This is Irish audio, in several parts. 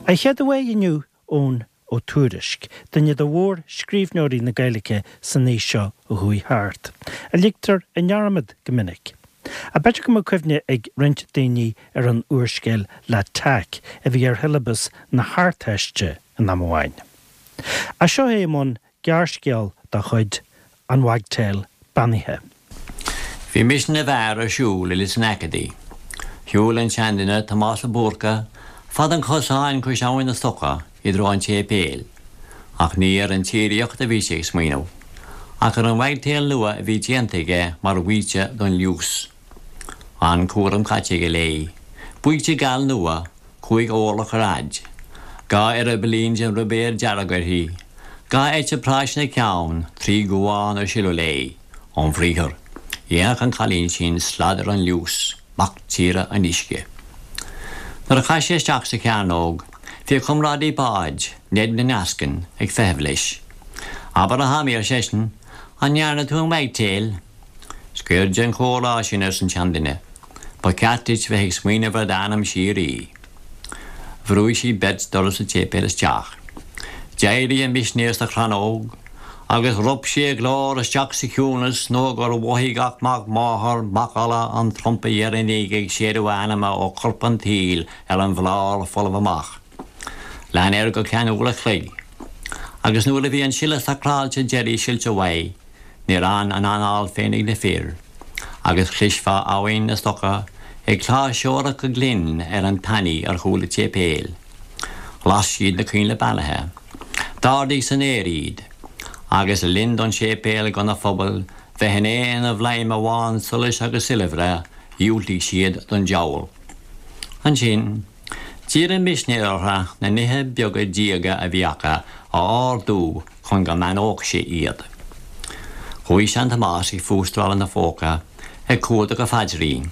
An chéad uaidh inniu, Eoin Ó Tuairisg, duine de mhór-scríbhneoirí na Gaeilge san aois seo a chuaigh thart, a ligtear i ndearmad go minic. Ach b'fhéidir go mbeadh cuimhne ag roinnt daoine ar an úrscéal L'Attaque a bhí ar shiollabas na hArdteiste in am amháin. Ach seo é i mbun gearrscéal dá chuid, An Wagtail Beannaithe. Bhí misean na bhfear ar siúl i Lios an Acadaí. Shiúil an seanduine, Tomás Ó Búrca, fad an chosáin cois Abhainn na Stoca i dtreo an tséipéil. Ach ní ar an tsíoraíocht a bhí sé ag smaoineamh, ach ar an wagtail nua a bhí déanta aige mar bhaoite don liús. An-chúram caite aige léi. Baoite geal nua, 5 orlach ar fhaid. 2 eireabaillín den ruibéar dearg uirthi. 2 eite práis ina ceann, 3 dhuán ar sileadh léi. Óm bhriathar, dhéanfadh an cailín sin slad ar an liús, mac tíre an uisce. Nuair a chaith sé isteach sa chearnóg, bhí a chomrádaí báid, Ned na nEascann, ag feitheamh leis. Abair a Thomaí, ar seisean, an ndearna tú an wagtail? Scoir den chomhrá sin, arsa an seanduine. Ba cheart duit bheith ag smaoineamh ar d'anam síoraí. Bhrúigh siad beirt doras an tséipéil isteach. D'éirigh an misinéir sa chrannóg agus rop sé a ghlór isteach sa chiúnas nó gur mhothaigh gach mac máthar macalla an trumpa dheireanaigh ag séideadh a anama ó chorp an tsaoil ar an bhlár folamh amach. Lean air go ceann uair a chloig agus nuair a bhí an sileadh sacráilte deiridh silte uaidh, Níor fhan an anáil féin ag na fir, agus chloisfeá Abhainn na Stoca ag cláirseoireacht go glinn ar an tanaí ar chúl an tséipéil. Las siad na coinnle beannaithe. D'ardaigh san aer iad. Agus le linn don séipéal gona phuball bheith in aon bhladhm amháin solais agus soilbhre, dhiúltaigh siad don diabhal. Ansin, d'iarr an misinéir orthu na nithe beaga diaga a bhí acu a ardú chun go mbeannódh sé iad. Chuaigh sean-Tomás ag fústráil ina phóca, ag cuardach a phaidrín.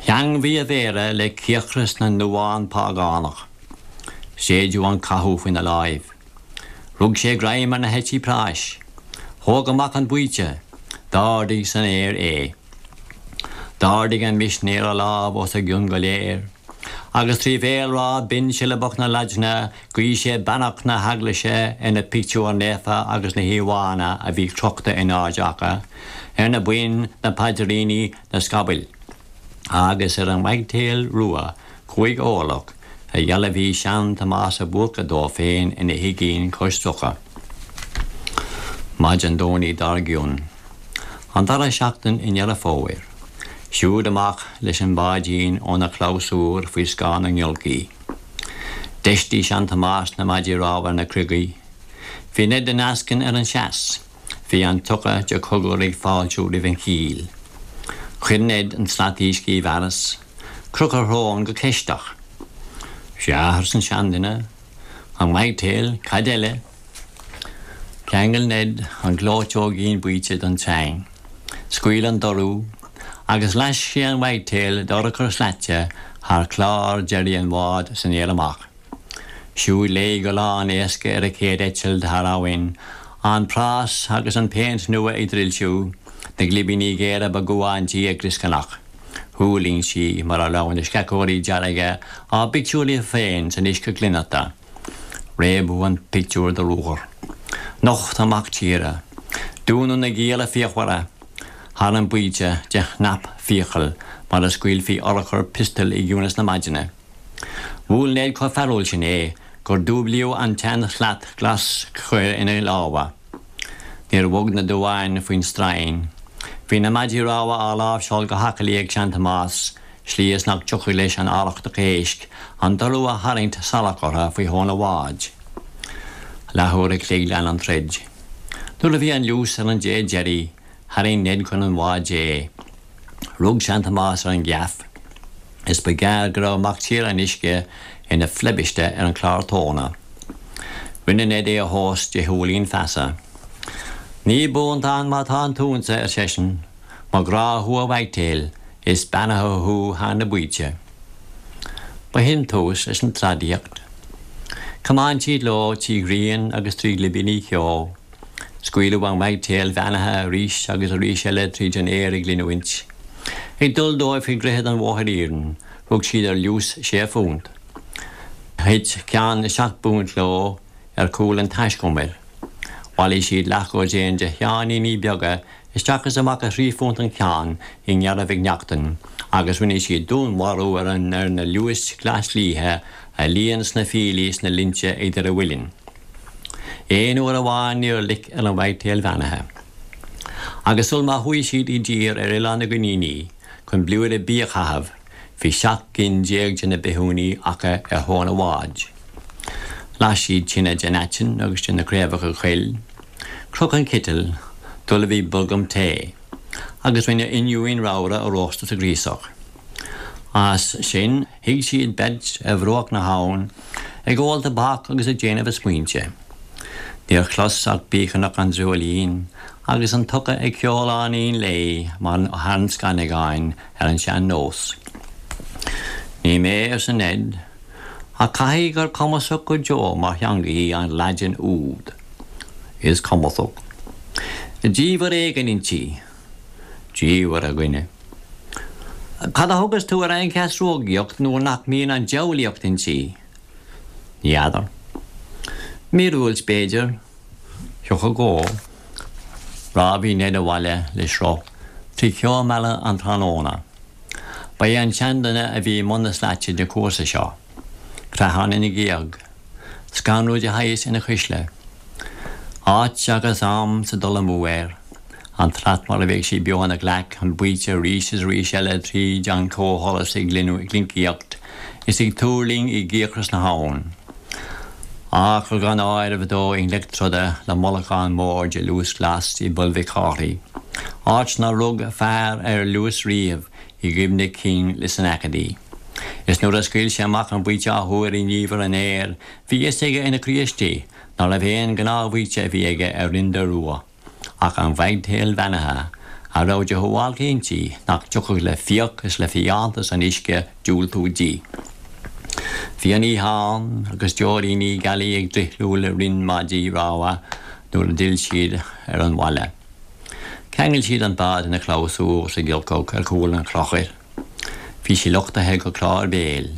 Theangmhaigh a mhéara le cíocras na nduán págánach. Séideadh an cathú faoina láimh. Rug sé greim ar na heití práis. Thóg amach an baoite. D'ardaigh san aer é. D'ardaigh an misinéir a lámh os a gcionn go léir, agus trí bhéalrá binn siollabach na Laidne Ghuigh sé beannacht na hEaglaise ar na pictiúir naofa agus na híomhánna a bhí crochta in airde acu, ar na boinn, na paidríní, na scabaill, agus ar an wagtail rua 5 orlach a dhealbhaigh sean-Tomás Ó Búrca dó féin ina thigín cois locha. Maidin Domhnaigh dár gcionn, an dara seachtain i nDeireadh Fómhair, siúd amach leis an bháidín óna chlabhsúr faoi scáth na ngiolcaí. D'fheistigh sean-Tomás na maidí rámha ar na criogaí. Bhí Ned na nEascann ar an seas. Bhí an tioca de chogar ag fáiltiú roimh an chíll. Chuir Ned an tslat uisce i bhfearas. Chroch a shrón go ceisteach. Sea, arsa an seanduine. An wagtail, cad eile? Cheangail Ned an ghleoiteoigín baoite don tsreang. Scaoil an dorú, agus laisc sé an wagtail d'urchar slaite thar chlár deiridh an bháid san aer amach. Siúd léi go lán éasca ar a céad eitilt thar abhainn, an prás agus an phéint nua ag drilsiú, na glibíní géara ba dhuán di ag glioscarnach. Thuirling sí mar a raibh na sceachóirí dearga á bpictiúrú féin san uisce glionnochta. Réabadh an pictiúr de ruathar. Nocht an mac tíre. Dúnadh na gialla fíochmhara thar an baoite de chnap fiacal mar a scaoilfí urchar piostail i gciúnas na maidine. Bhuail Ned chomh fearúil sin é gur dúblaíodh an tsean-shlat ghlas chaor ina lámha. Níor bhog na duáin faoin stroighin. Bhí na maidí rámha á láimhseáil go haclaí ag sean-Tomás slí is nach dtiocfadh leis an arrachtach éisc an dorú a tharraingt salach orthu faoi thóin an bháid. Leathuair a chloig lean an troid. Nuair a bhí an liús ar an dé deiridh, tharraing Ned chun an bháid é. Rug sean-Tomás ar an gheaf is ba ghearr go raibh mac tíre an uisce ina phleibiste ar an chlár tóna. Rinne Ned é a thomhas de shiúilín feasa. Ní buantán má tá an t-unsa, ar seisean. Mo ghrá thú a wagtail, is beannaithe thú thar na baoite. Ba shin tús leis an tsladaíocht. Thiomáin siad leo trí ghrian agus trí ghlibíní ceo. Scaoileadh an wagtail bheannaithe arís agus arís eile tríd an aer ag glinniúint. Ag dul dóibh faoi dhroichead an bhóthair iarainn, rug siad ar liús sé phunt. Thit ceann na seacht bpunt leo ar chúl an taiscumair. Bhailigh siad leathdhosaen de sheáiníní beaga isteach is amach ar thrí phunt an ceann i nGearra Mhic Neachtain agus rinne siad dúnmharú ar ar na liúis ghlasliatha a líon sna fiailí sna linnte idir a mhuilinn. Aon uair amháin níor loic ar an wagtail bheannaithe. Agus sul má chuaigh siad i dtír ar Oileán na gCoiníní chun blúire bídh a chaitheamh, Bhí 17 gcinn de na bithiúnaigh acu ar thóin an bháid. Las siad tine den aiteann agus de na craobhacha coill. Chroch an citeal, d'ullmhaigh bolgam tae, agus rinne oinniúin ramhra a róstadh sa ghríosach. As sin, shuigh siad beirt ar bhruach na habhann, ag ól tobac agus ag déanamh a smaointe. Níor chlos ach bícearnach an dreoilín agus an t-uca ag ceoláinín léi mar thar an scannagáin ar an sean-nós. Ní mé, arsa Ned, ach caithfidh gur cumasach go deo mar theanga í an Laidin úd. Is cumasach. Diamhair éigin inti. Diamhair, a dhuine. Cad a thugas tú ar an cheasrógaíocht nuair nach mbíonn an diabhlaíocht inti? Ní fheadar. Míorúilt, b'fhéidir. Thiocfadh dhó. Rámhaigh Ned abhaile le sruth trí cheo meala an tráthnóna. Ba é an seanduine a bhí i mbun na slaite den chúrsa seo. Creathán ina ghéag. Scanrú de shaghas ina chuisle. Áit agus am sa dul amú air. An tslat mar a bheadh sí beo ina ghlaic, an baoite arís is arís eile tríd an comhsholas ag glincaíocht is ag tuirling i gcíocras na habhann. Achar gan áireamh dó i ngleic troda le mullachán mór de liús glas i bPoll Mhic Cárthaigh, áit nár rug fear ar liús riamh i gcuimhne cinn Lios an Acadie. Is nuair a scaoil sé amach an baoite athuair i ndiamhair an aeir, bhí fhios aige ina chroí istigh nárbh aon ghnáthbhaoite a bhí aige ar Rinn Dó Rua. Ach an wagtail bheannaithe, a raibh de shuáilce inti nach dtiocfadh le fiach is le fiántas an uisce diúltú di. Bhí an oíche ann agus deoiríní gealaí ag drithliú le rinn maidí rámha nuair a d'fhill siad ar an bhaile. Cheangail siad an bád ina chlabhsúr sa ghiolcach ar chúl an chlochair. Bhí sí luchtaithe go clár béil.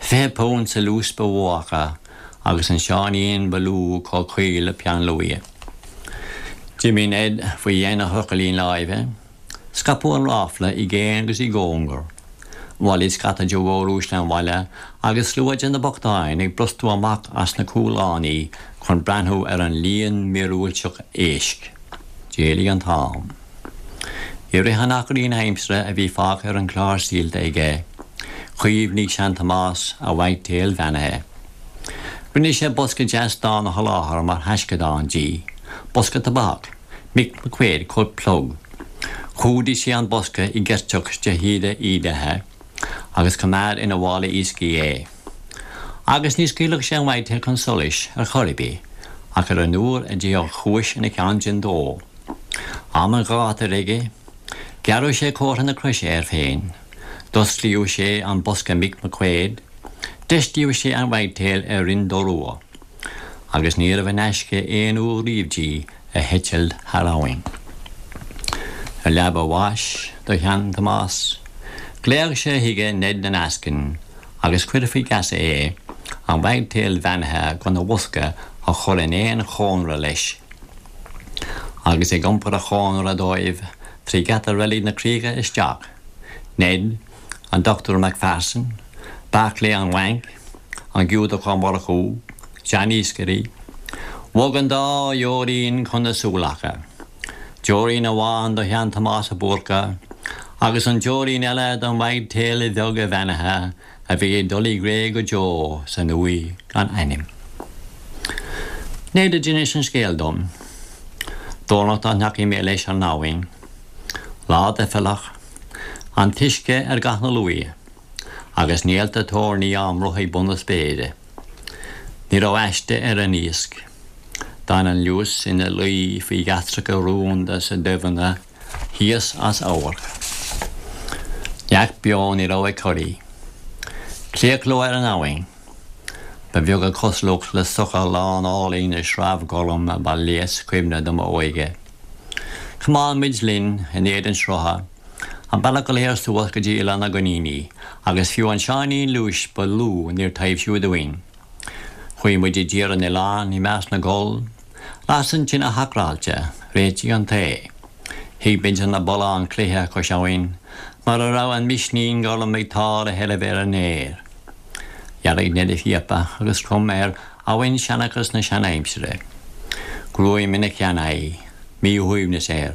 £20 sa liús ba mhó acu agus an seáinín ba lú chomh caol le peann luaidhe. D'imigh Ned faoi dhéin a thrucailín láimhe. Scaipeadh an ráfla i gcéin agus i gcóngar. Bhailigh scata de mhóruaisle an bhaile agus slua de na bochtáin ag brostú amach as na cúl-lánaí chun breathnú ar an líon míorúilteach éisc. D'éalaigh an t-am. I rith an achairín aimsire a bhí fágtha ar an chlár saolta aige, chuimhnigh sean-Tomás a wagtail bheannaithe. Rinne sé bosca deas donn a sholáthar mar thaisceadán di, bosca tobac, Mick McQuaid chomh plug. Chumhdaigh sé an bosca i gceirteach de shíoda ídithe agus choimeád ina mhála iascaigh é. Agus ní scaoilfeadh sé an wagtail chun solais ar chor ar bith ach ar an uair a dtiocfadh chúis ina cheann sin dó. Am an ghátair aige, ghearradh sé comhartha na croise air féin, d'osclaíodh sé an bosca Mick McQuaid, d'fheistíodh sé an wagtail ar Rinn Dó Rua, agus níorbh in aisce aon uair riamh di a heitilt thar abhainn. Ar leaba a bháis do shean-Thomás, ghlaoigh sé chuige Ned na nEascann agus chuir faoi gheasa é an wagtail bheannaithe gona bhosca a chur in aon chónra leis. Agus ag iompar a chónra dóibh trí gheata Reilig na Críche isteach, Ned, an Dochtúir MacPherson, Barclay an Bhainc, an Giúdach Ó Murchú, seaniascairí. Bhog an dá dheoirín chun na súl acu. Deoirín amháin do shean-Thomás Ó Búrca agus an deoirín eile don wagtail bheag bheannaithe a bhí ag dul i gcré go deo san uaigh gan ainm. Ned a d'inis an scéal dom. Domhnach dá ndeachaigh mé leis ar an abhainn. Lá doicheallach. An t-uisce ar dhath na luaidhe. Agus néalta toirní á mbruth ag bun na spéire. Ní raibh aiste ar an iasc. D'fhan an liús ina luí faoi ghasracha rúnda sa doimhne thíos as amharc. Neach beo ní raibh ag corraí. Claochló ar an abhainn. Ba bheag a cosúlacht le sochar lán álainn na sreabh gorm a ba léas cuimhne do m'óige. Chomáin muid linn in éadan srutha. An bealach go léir suas go dtí Oileán na gCoiníní, agus fiú an seáinín liúis ba lú níor taibhsíodh dúinn. Chuaigh muid i dTír an Oileáin i measc na gcoll. Las an tine shacráilte, réitigh an tae. Shuigh muid ar na bulláin cloiche cois abhainn, mar a raibh an misnín gorm ag tá le heirbh ar an fhéar. Dhearg Ned a phíopa agus chrom ar abhainn-seanchas na seanaimsire. Gruaim ina sheanaghaidh, míshuaimhneas air,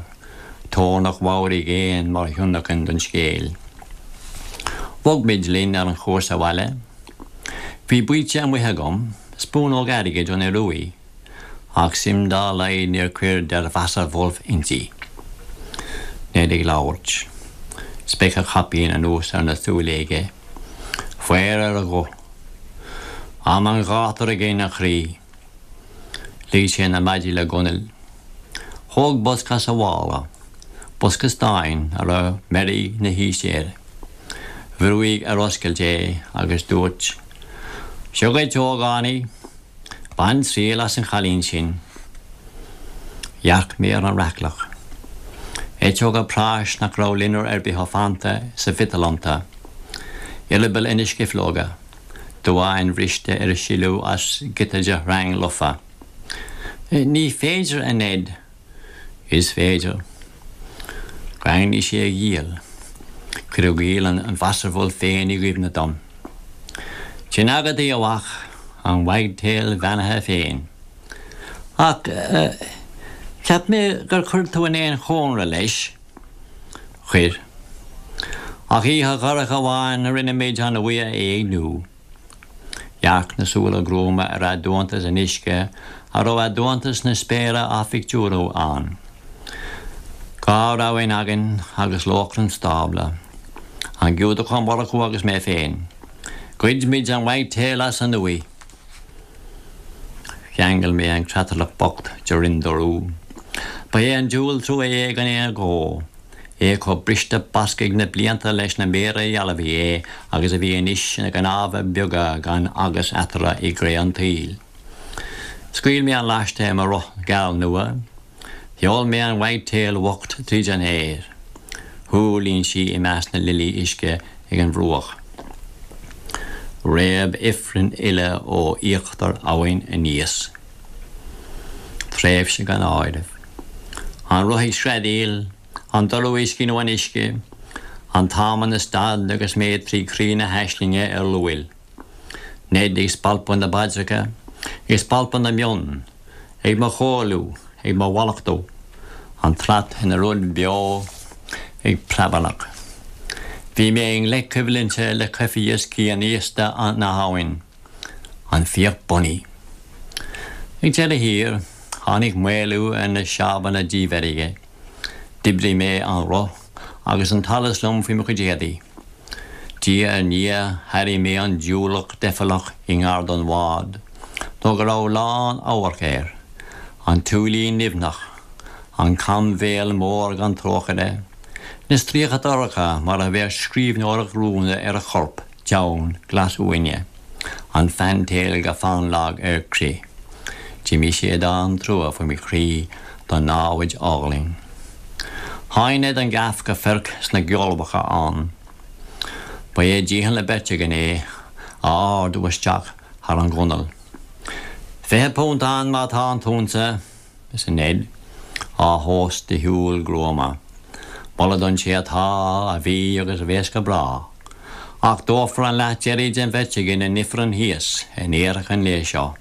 toirneach mheabhraigh éan mar thionlacan don scéal. Bhog muid linn ar an chúrsa abhaile. Bhí baoite amuigh agam, spúnóg airgid ón Ioruaidh, ach suim dá laghad níor cuir Der Wasserwolf inti. Ned ag labhairt. Speic a chaipín anuas ar na súile aige. Faobhar ar a ghuth. Am an ghátair againn, a chroí. Lig sé na maidí le gunail. Thóg bosca as a mhála, bosca stáin a raibh meirg na haoise air. Bhrúigh ar oscailt é agus dúirt, Seo dhuit, a ógánaigh. Bain triail as an chailín sin. Dhearc mé ar an raicleach. Eiteoga práis nach raibh loinnir ar bith fanta sa mhiotal iontu. Eireabaill ina scifleoga. Duáin bhriste ar sileadh as giota de shreang lofa. Ní féidir, a Ned. Is féidir. Dhaingnigh sé a ghiall. Cuireadh giall an Wasserwolf féin i gcuimhne dom. Sin agat í, a mhac, an wagtail bheannaithe féin. Ach cheap mé gur chuir tú in aon chónra leis. Chuir. Ach oíche dhorcha amháin rinne muid an uaigh a éigniú. Dhearc na súile gruama ar aduantas an uisce a raibh aduantas na spéire á phictiúrú ann. Dhá ramhainn againn agus lóchrann stábla. An Giúdach Ó Murchú agus mé féin. Ghoid muid an wagtail as an uaigh. Cheangail mé an creatlach bocht de Rinn Dorú. Ba é an diabhal trua é gan aon agó. É chomh briste basctha ag na blianta leis na méara a dhealbhaigh é agus a bhí anois ina gcnámha beaga gan agus eatarthu i gcré an tsaoil. Scaoil mé an laiste ar mo roth geal nua. Sheol mé an wagtail bhocht tríd an aer. Thuirling sí i measc na lilí uisce ag an bhruach. Réab ifreann uile ó íochtar abhainn aníos. Tréimhse gan áireamh. An roth ag screadaíl, an dorú uisce nó an uisce, an t-am ina stad agus mé trí chroí na haislinge ar luail. Ned ag spalpadh na bpaidreacha, ag spalpadh na mionn, ag mo chomhairliú, ag mo mhallachtú, an tslat ina rud beo ag preabarnach. Bhí mé i ngleic coimhlinte le coimhthíos cianaosta na habhann, an fiach bunaidh. Ag deireadh thiar, tháinig maolú ar na seámhanna dímheirge. D'oibrigh mé an roth agus an t-allas liom faoi mo chuid éadaí. Diaidh ar ndiaidh thairigh mé an diúlach deifealach i ngar don bhád, nó go raibh lán-amharc air, an tsúilín nimhneach, an cambhéal mór gan trócaire, na stríoca dorcha mar a bheadh scríbhneoireacht rúnda ar a chorp donn glas uaine, an fantail go fannlag ar crith. D'imigh séideán trua faoi mo chroí don námhaid álainn. Sháigh Ned an gaff go feirc sna geolbhacha ann. Ba é dícheall na beirte againn é a ardú isteach thar an ghunail. £20 ann má tá an t-unsa, arsa Ned, á thomhas de shiúl gruama. Moladh don té atá, a bhí agus a bheas go bráth. Ach dófar an leath deiridh den bheirt againn in ifreann thíos in iarthach an lae seo.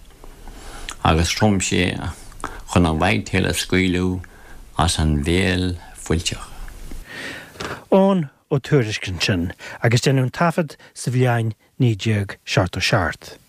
Agus chrom sé chun an wagtail a scaoileadh as an bhéal fuilteach. Eoghan Ó Tuairisg ansin, agus deineadh an taifead sa bhliain 1977.